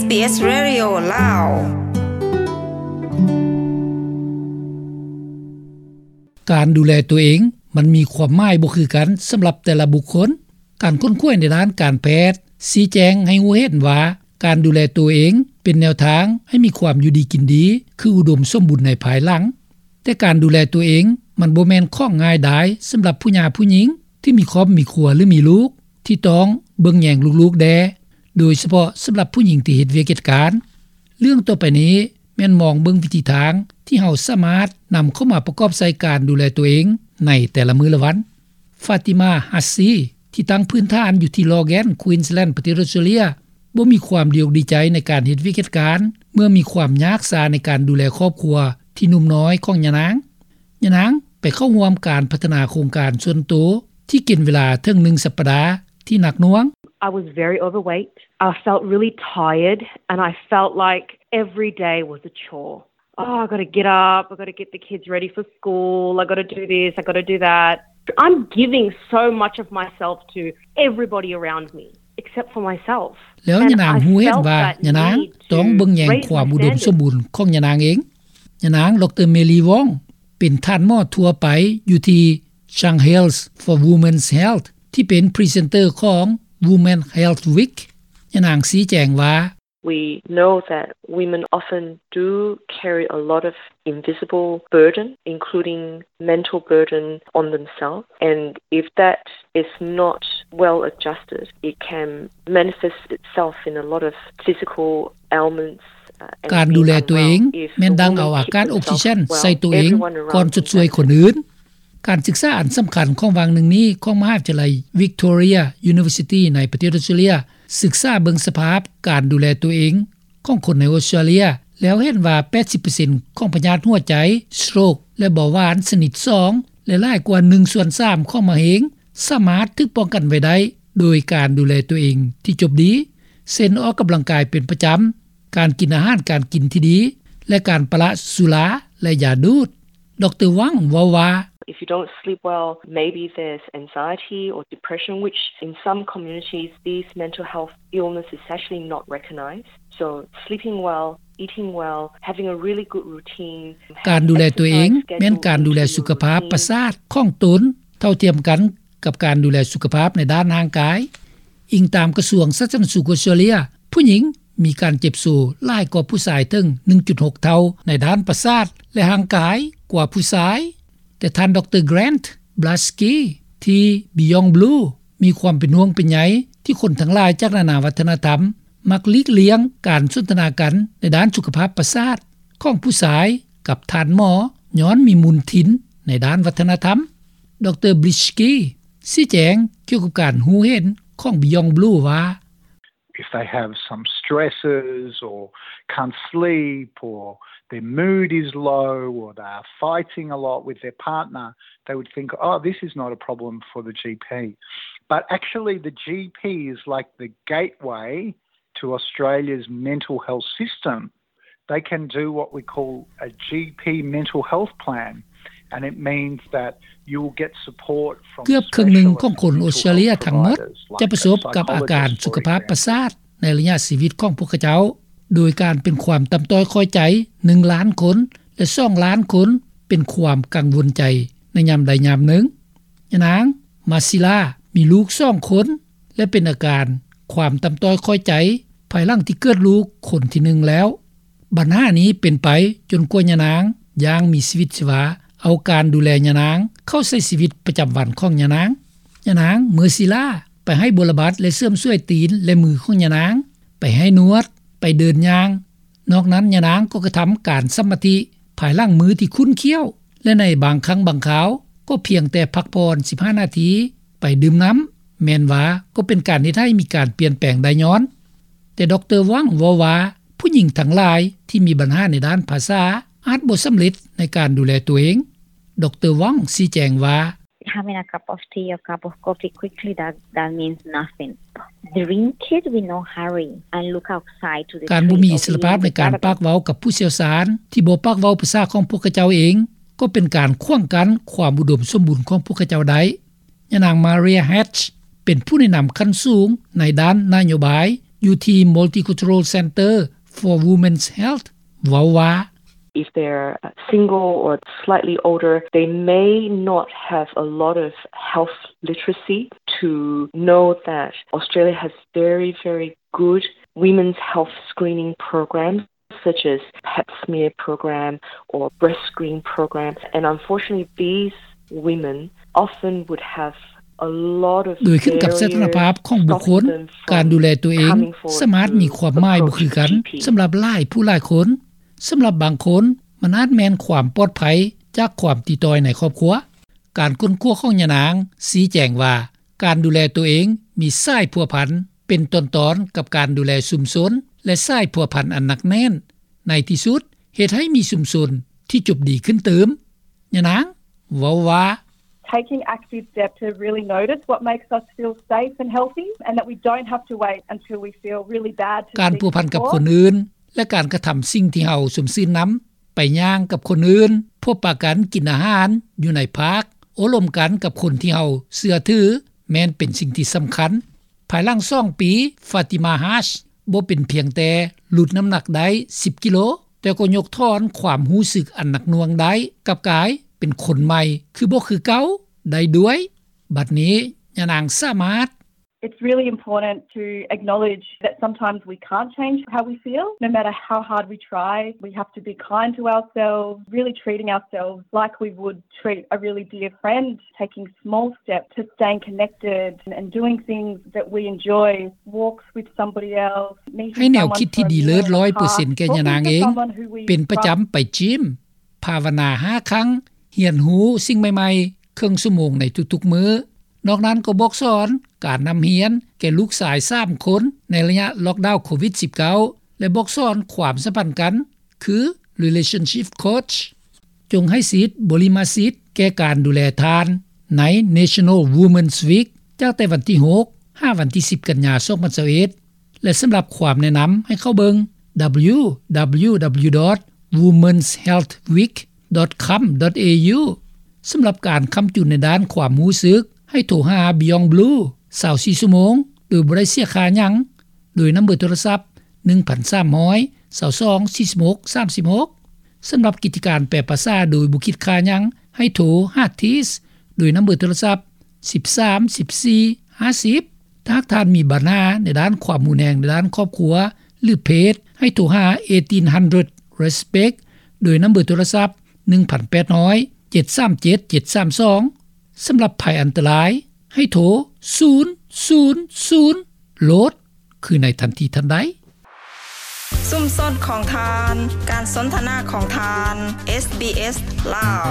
ເອສ Radio ລາວ. ການດູແລຕົວເອງມັນມີຄວາມໝາຍບໍ່ຄືກັນສຳລັບແຕ່ລະບຸກຄົນ. ການຄົ້ນຄວ້າໃນດ້ານການແພດຊີ້ແຈງໃຫ້ຮູ້ເຫັນວ່າ ການດູແລຕົວເອງເປັນແນວທາງໃຫ້ມີຄວາມຢູ່ດີກິນດີ ຄືອຸດົມສົມບູນໃນພາຍຫຼັງ. ແຕ່ການດູແລຕົວເອງມັນບໍ່ແມ່ນຂອງງ່າຍດາຍສຳລັບຜູ້ຫຍ່າຜູ້ຍິງທີ່ມີຄອບມີຄົວ ຫຼື ມີລູກ ທີ່ຕ້ອງເບິ່ງແຍງລູກໆແດ່, ໂດຍສະເພາະສຳລັບຜູ້ຍິງທີ່ເຮັດວຽກເຮັດການ. ເລື່ອງຕໍ່ໄປນີ້ແມ່ນມອງເບິ່ງວິທີທາງທີ່ເຮົາສາມາດນຳເຂົ້າມາປະກອບໃສ່ການດູແລຕົວເອງໃນແຕ່ລະມື້ລະວັນ. ຟາຕິມາ ຮັດຊີ ທີ່ຕັ້ງພື້ນຖານຢູ່ທີ່ Logan Queensland ປະເທດອອສເຕຣເລັຍ ບໍ່ມີຄວາມດີອົກດີໃຈໃນການເຮັດວຽກເຮັດການ ເມື່ອມີຄວາມຍາກຊາໃນການດູແລຄອບຄົວທີ່ໜຸ່ມນ້ອຍຂອງຍານາງ. ຍານາງໄປເຂົ້າຮ່ວມການພັດທະນາໂຄງການສ່ວນໂຕທີ່ກິນເວລາເຖິງໜຶ່ງສັບປະດາທີ່ໜັກໜ່ວງ. I was very overweight. I felt really tired and I felt like every day was a chore. Oh, I gotta get up, I gotta get the kids ready for school, I gotta do this, I gotta do that. I'm giving so much of myself to everybody around me except for myself. ແລ້ວຍານາງຮູ້ເຫັນວ່າຍານາງຕ້ອງເບິ່ງແຍງຄວາມອຸດົມສົມບູນຂອງຍານາງເອງ. ຍານາງ ດຣ ເມລີ ວອງ ເປັນທ່ານໝໍທົ່ວໄປຢູ່ທີ່ Shang Health for Women's Health ທີ່ເປັນພຣີເຊັນເຕີຂອງ Women Health Week. ຍານາງຊີ້ແຈງວ່າ We know that women often do carry a lot of invisible burden, including mental burden on themselves. And if that is not well adjusted, it can manifest itself in a lot of physical ailments. ການດູແລຕົວເອງແມ່ນດັ່ງເອົາອາກາດອົກຊີເຊັນໃສ່ຕົວເອງກ່ອນຊົດຊ່ວຍຄົນອື່ນ. ການສຶກສາອັນສຳຄັນຂອງຫວ່າງໜຶ່ງນີ້ຂອງມະຫາວິທະຍາໄລ Victoria University ໃນປະເທດອອສເຕຣເລັຍ ສຶກສາເບິ່ງສະພາບການດູແລຕົວເອງຂອງຄົນໃນອອສເຕຣເລັຍ ແລ້ວເຫັນວ່າ ແປດສິບເປີເຊັນຂອງພະຍາດຫົວໃຈ, ສະໂຕຣກ ແລະ ເບົາຫວານຊະນິດສອງ ແລະ ຫຼາຍກວ່າໜຶ່ງສ່ວນສາມຂອງມະເຮັງ ສາມາດຖືກປ້ອງກັນໄວ້ໄດ້ໂດຍການດູແລຕົວເອງທີ່ຈົບດີ ເຊັ່ນ ອອກກຳລັງກາຍເປັນປະຈຳ, ການກິນອາຫານການກິນທີ່ດີ ແລະ ການປະລະສຸລາ ແລະ ຢາດູດ. ດຣ ວອງ ເວົ້າວ່າ If you don't sleep well, maybe there's anxiety or depression, which in some communities, these mental health illness is actually not recognized. So sleeping well, eating well, having a really good routine. ການດູແລຕົວເອງແມ່ນການດູແລສຸຂະພາບປະສາດຂອງຕົນ ເທົ່າທຽມກັນກັບການດູແລສຸຂະພາບໃນດ້ານຮ່າງກາຍ. ອີງຕາມກະຊວງສາທາລະນະສຸກອອສເຕຣເລັຍ, ຜູ້ຍິງມີການເຈັບໂຊຫຼາຍກວ່າຜູ້ຊາຍເຖິງ ໜຶ່ງຈຸດຫົກ ເທົ່າໃນດ້ານປະສາດ ແລະ ຮ່າງກາຍກວ່າຜູ້ຊາຍ. ແຕ່ທ່ານ ດຣ Grant Blaskie ທີ່ Beyond Blue ມີຄວາມເປັນຫ່ວງເປັນໃຍທີ່ຄົນທັງຫຼາຍຈາກນານາວັດທະນະທຳ ມັກຫຼີກລ່ຽງການສົນທະນາກັນໃນດ້ານສຸຂະພາບປະສາດຂອງຜູ້ຊາຍກັບທ່ານໝໍ ຍ້ອນມີມູນທິນໃນດ້ານວັດທະນະທຳ. ດຣ Blaskie ຊີ້ແຈງກ່ຽວກັບການຮູ້ເຫັນຂອງ Beyond Blue ວ່າ If they have some stresses or can't sleep or their mood is low or they are fighting a lot with their partner, they would think, oh, this is not a problem for the GP. But actually, the GP is like the gateway to Australia's mental health system. They can do what we call a GP mental health plan, and it means that you will get support from ເກືອບເຄິ່ງໜຶ່ງຂອງຄົນອອສເຕຣເລັຍທັງໝົດຈະປະສົບກັບອາການສຸຂະພາບປະສາດໃນໄລຍະຊີວິດຂອງພວກເຂົາເຈົ້າ, ໂດຍການເປັນຄວາມຕ່ຳຕ້ອຍຂ້ອຍໃຈໜຶ່ງລ້ານຄົນ ແລະ ສອງລ້ານຄົນເປັນຄວາມກັງວົນໃຈໃນຍາມໃດຍາມໜຶ່ງ. ຍານາງ ມາຊິລາ ມີລູກສອງຄົນ ແລະ ເປັນອາການຄວາມຕ່ຳຕ້ອຍຂ້ອຍໃຈພາຍຫຼັງທີ່ເກີດລູກຄົນທີໜຶ່ງແລ້ວ. ບັນຫານີ້ເປັນໄປຈົນກວ່າຍານາງຢ່າງມີຊີວິດຊີວາ ເອົາການດູແລຍານາງເຂົ້າໃສ່ຊີວິດປະຈຳວັນຂອງຍານາງ. ຍານາງ ເມີຊີລາ ໄປໃຫ້ບົວລະບັດ ແລະ ເສີມສວຍຕີນ ແລະ ມືຂອງຍານາງ, ໄປໃຫ້ນວດ, ໄປເດີນຍ່າງ. ນອກນັ້ນ ຍານາງກໍກະທຳການສະມາທິພາຍຫຼັງມື້ທີ່ຂຸ້ນຂ້ຽວ ແລະ ໃນບາງຄັ້ງບາງຄາວກໍພຽງແຕ່ພັກຜ່ອນສິບຫ້ານາທີ, ໄປດື່ມນ້ຳ, ແມ່ນວ່າກໍເປັນການເຮັດໃຫ້ມີການປ່ຽນແປງໄດ້ຍ້ອນ. ແຕ່ ດຣ ວັງ ເວົ້າວ່າ ຜູ້ຍິງທັງຫຼາຍທີ່ມີບັນຫາໃນດ້ານພາສາອາດບໍ່ສຳເລັດໃນການດູແລຕົວເອງ. ດຣ ວັງ ຊີ້ແຈງວ່າ Having a cup of tea or cup of coffee quickly, that, that means nothing. Drink it with no hurry and look outside to the ການບໍ່ມີອິດສະຫຼະພາບໃນການປາກເວົ້າກັບຜູ້ຊ່ຽວຊານທີ່ບໍ່ປາກເວົ້າພາສາຂອງພວກເຂົາເຈົ້າເອງ ກໍເປັນການຂວາງກັ້ນຄວາມອຸດົມສົມບູນຂອງພວກເຂົາເຈົ້າໄດ້. ຍານາງ ມາເຣຍ ແຮັດ ເປັນຜູ້ແນະນຳຂັ້ນສູງໃນດ້ານນະໂຍບາຍ ຢູ່ທີ່ Multicultural Centre for Women's Health ເວົ້າວ່າ If they're single or slightly older, they may not have a lot of health literacy to know that Australia has very, very good women's health screening programs, such as pap smear program or breast screen program. And unfortunately, these women often would have a lot of ໂດຍຂຶ້ນກັບສະຖານະພາບຂອງບຸກຄົນ, ການດູແລຕົວເອງສາມາດມີຄວາມໝາຍບໍ່ຄືກັນສຳລັບຫຼາຍຜູ້ຫຼາຍຄົນ. ສຳລັບບາງຄົນ, ມັນອາດແມ່ນຄວາມປອດໄພຈາກຄວາມຕິດຕໍ່ຍໃນຄອບຄົວ. ການຄົ້ນຄວ້າຂອງຍານາງຊີ້ແຈງວ່າ ການດູແລຕົວເອງມີສາຍພົວພັນເປັນຕອນໆກັບການດູແລຊຸມຊົນ ແລະ ສາຍພົວພັນອັນໜັກແໜ້ນ. ໃນທີ່ສຸດ, ເຮັດໃຫ້ມີຊຸມຊົນທີ່ຈົບດີຂຶ້ນຕື່ມ. ຍານາງເວົ້າວ່າ Taking active steps to really notice what makes us feel safe and healthy, and that we don't have to wait until we feel really bad to ການພົວພັນກັບຄົນອື່ນ ແລະ ການກະທຳສິ່ງທີ່ເຮົາຊົມຊື່ນນຳ, ໄປຍ່າງກັບຄົນອື່ນ, ພົບປະກັນ, ກິນອາຫານຢູ່ໃນພາກ, ໂອ້ລົມກັນກັບຄົນທີ່ເຮົາເຊື່ອຖື ແມ່ນເປັນສິ່ງທີ່ສຳຄັນ. ພາຍຫຼັງສອງປີ, Fatima Haque ບໍ່ເປັນພຽງແຕ່ຫຼຸດນ້ຳໜັກໄດ້ສິບກິໂລ, ແຕ່ກໍຍົກຖອນຄວາມຮູ້ສຶກອັນໜັກໜ່ວງໄດ້, ກັບກາຍເປັນຄົນໃໝ່ຄືບໍ່ຄືເກົ່າໄດ້ດ້ວຍ. ບັດນີ້, ຍານາງສາມາດ It's really important to acknowledge that sometimes we can't change how we feel, no matter how hard we try. We have to be kind to ourselves, really treating ourselves like we would treat a really dear friend, taking small steps to staying connected and doing things that we enjoy, walks with somebody else, meeting someone for a meal in a park, talking to someone who we trust. ໃຫ້ແນວຄິດທີ່ດີເລີດຮ້ອຍເປີເຊັນແກ່ຍານາງເອງ ເປັນປະຈຳໄປຈິມ, ພາວະນາຫ້າຄັ້ງ, ຮຽນຮູ້ສິ່ງໃໝ່ໆເຄິ່ງຊົ່ວໂມງໃນທຸກໆມື້. ນອກນັ້ນກໍບອກສອນການນຳຮຽນແກ່ລູກຊາຍສາມຄົນໃນໄລຍະລັອກດາວໂຄວິດສິບເກົ້າ ແລະ ບອກສອນຄວາມສຳພັນກັນ ຄື relationship coach. ຈົ່ງໃຫ້ສິດບໍລິມະສິດແກ່ການດູແລທ່ານໃນ National Women's Week ຈາກແຕ່ວັນທີຫົກ ຫາວັນທີສິບ ກັນຍາ ສອງພັນຊາວເອັດ ແລະ ສຳລັບຄວາມແນະນຳໃຫ້ເຂົ້າເບິ່ງ www.womenshealthweek.com.au. ສຳລັບການຄ້ຳຈຸນໃນດ້ານຄວາມຮູ້ສຶກ ໃຫ້ໂທຫາ Beyond Blue ຊາວສີ່ຊົ່ວໂມງ ໂດຍບໍ່ໄດ້ເສຍຄ່າຫຍັງ ໂດຍນຳເບີໂທລະສັບ ໜຶ່ງພັນສາມຮ້ອຍ ຊາວສອງ ສີ່ສິບຫົກ ສາມສິບຫົກ. ສຳລັບກິດຈະການແປພາສາໂດຍບໍ່ຄິດຄ່າຫຍັງ ໃຫ້ໂທຫາ Tees ໂດຍນຳເບີໂທລະສັບ ສິບສາມ ສິບສີ່ ຫ້າສິບ. ຖ້າຫາກທ່ານມີບັນຫາໃນດ້ານຄວາມຮຸນແຮງໃນດ້ານຄອບຄົວ ຫຼື ເພດ ໃຫ້ໂທຫາ eighteen hundred Respect ໂດຍນຳເບີໂທລະສັບ ໜຶ່ງພັນແປດຮ້ອຍ ເຈັດສາມເຈັດ ເຈັດສາມສອງ. ສຳລັບໄພອັນຕະລາຍ ໃຫ້ໂທ ສູນສູນສູນ ໂລດ ຄືໃນທັນທີທັນໃດ. ຊຸມຊົນຂອງທ່ານ, ການສົນທະນາຂອງທ່ານ, ເອສບີເອສ ລາວ.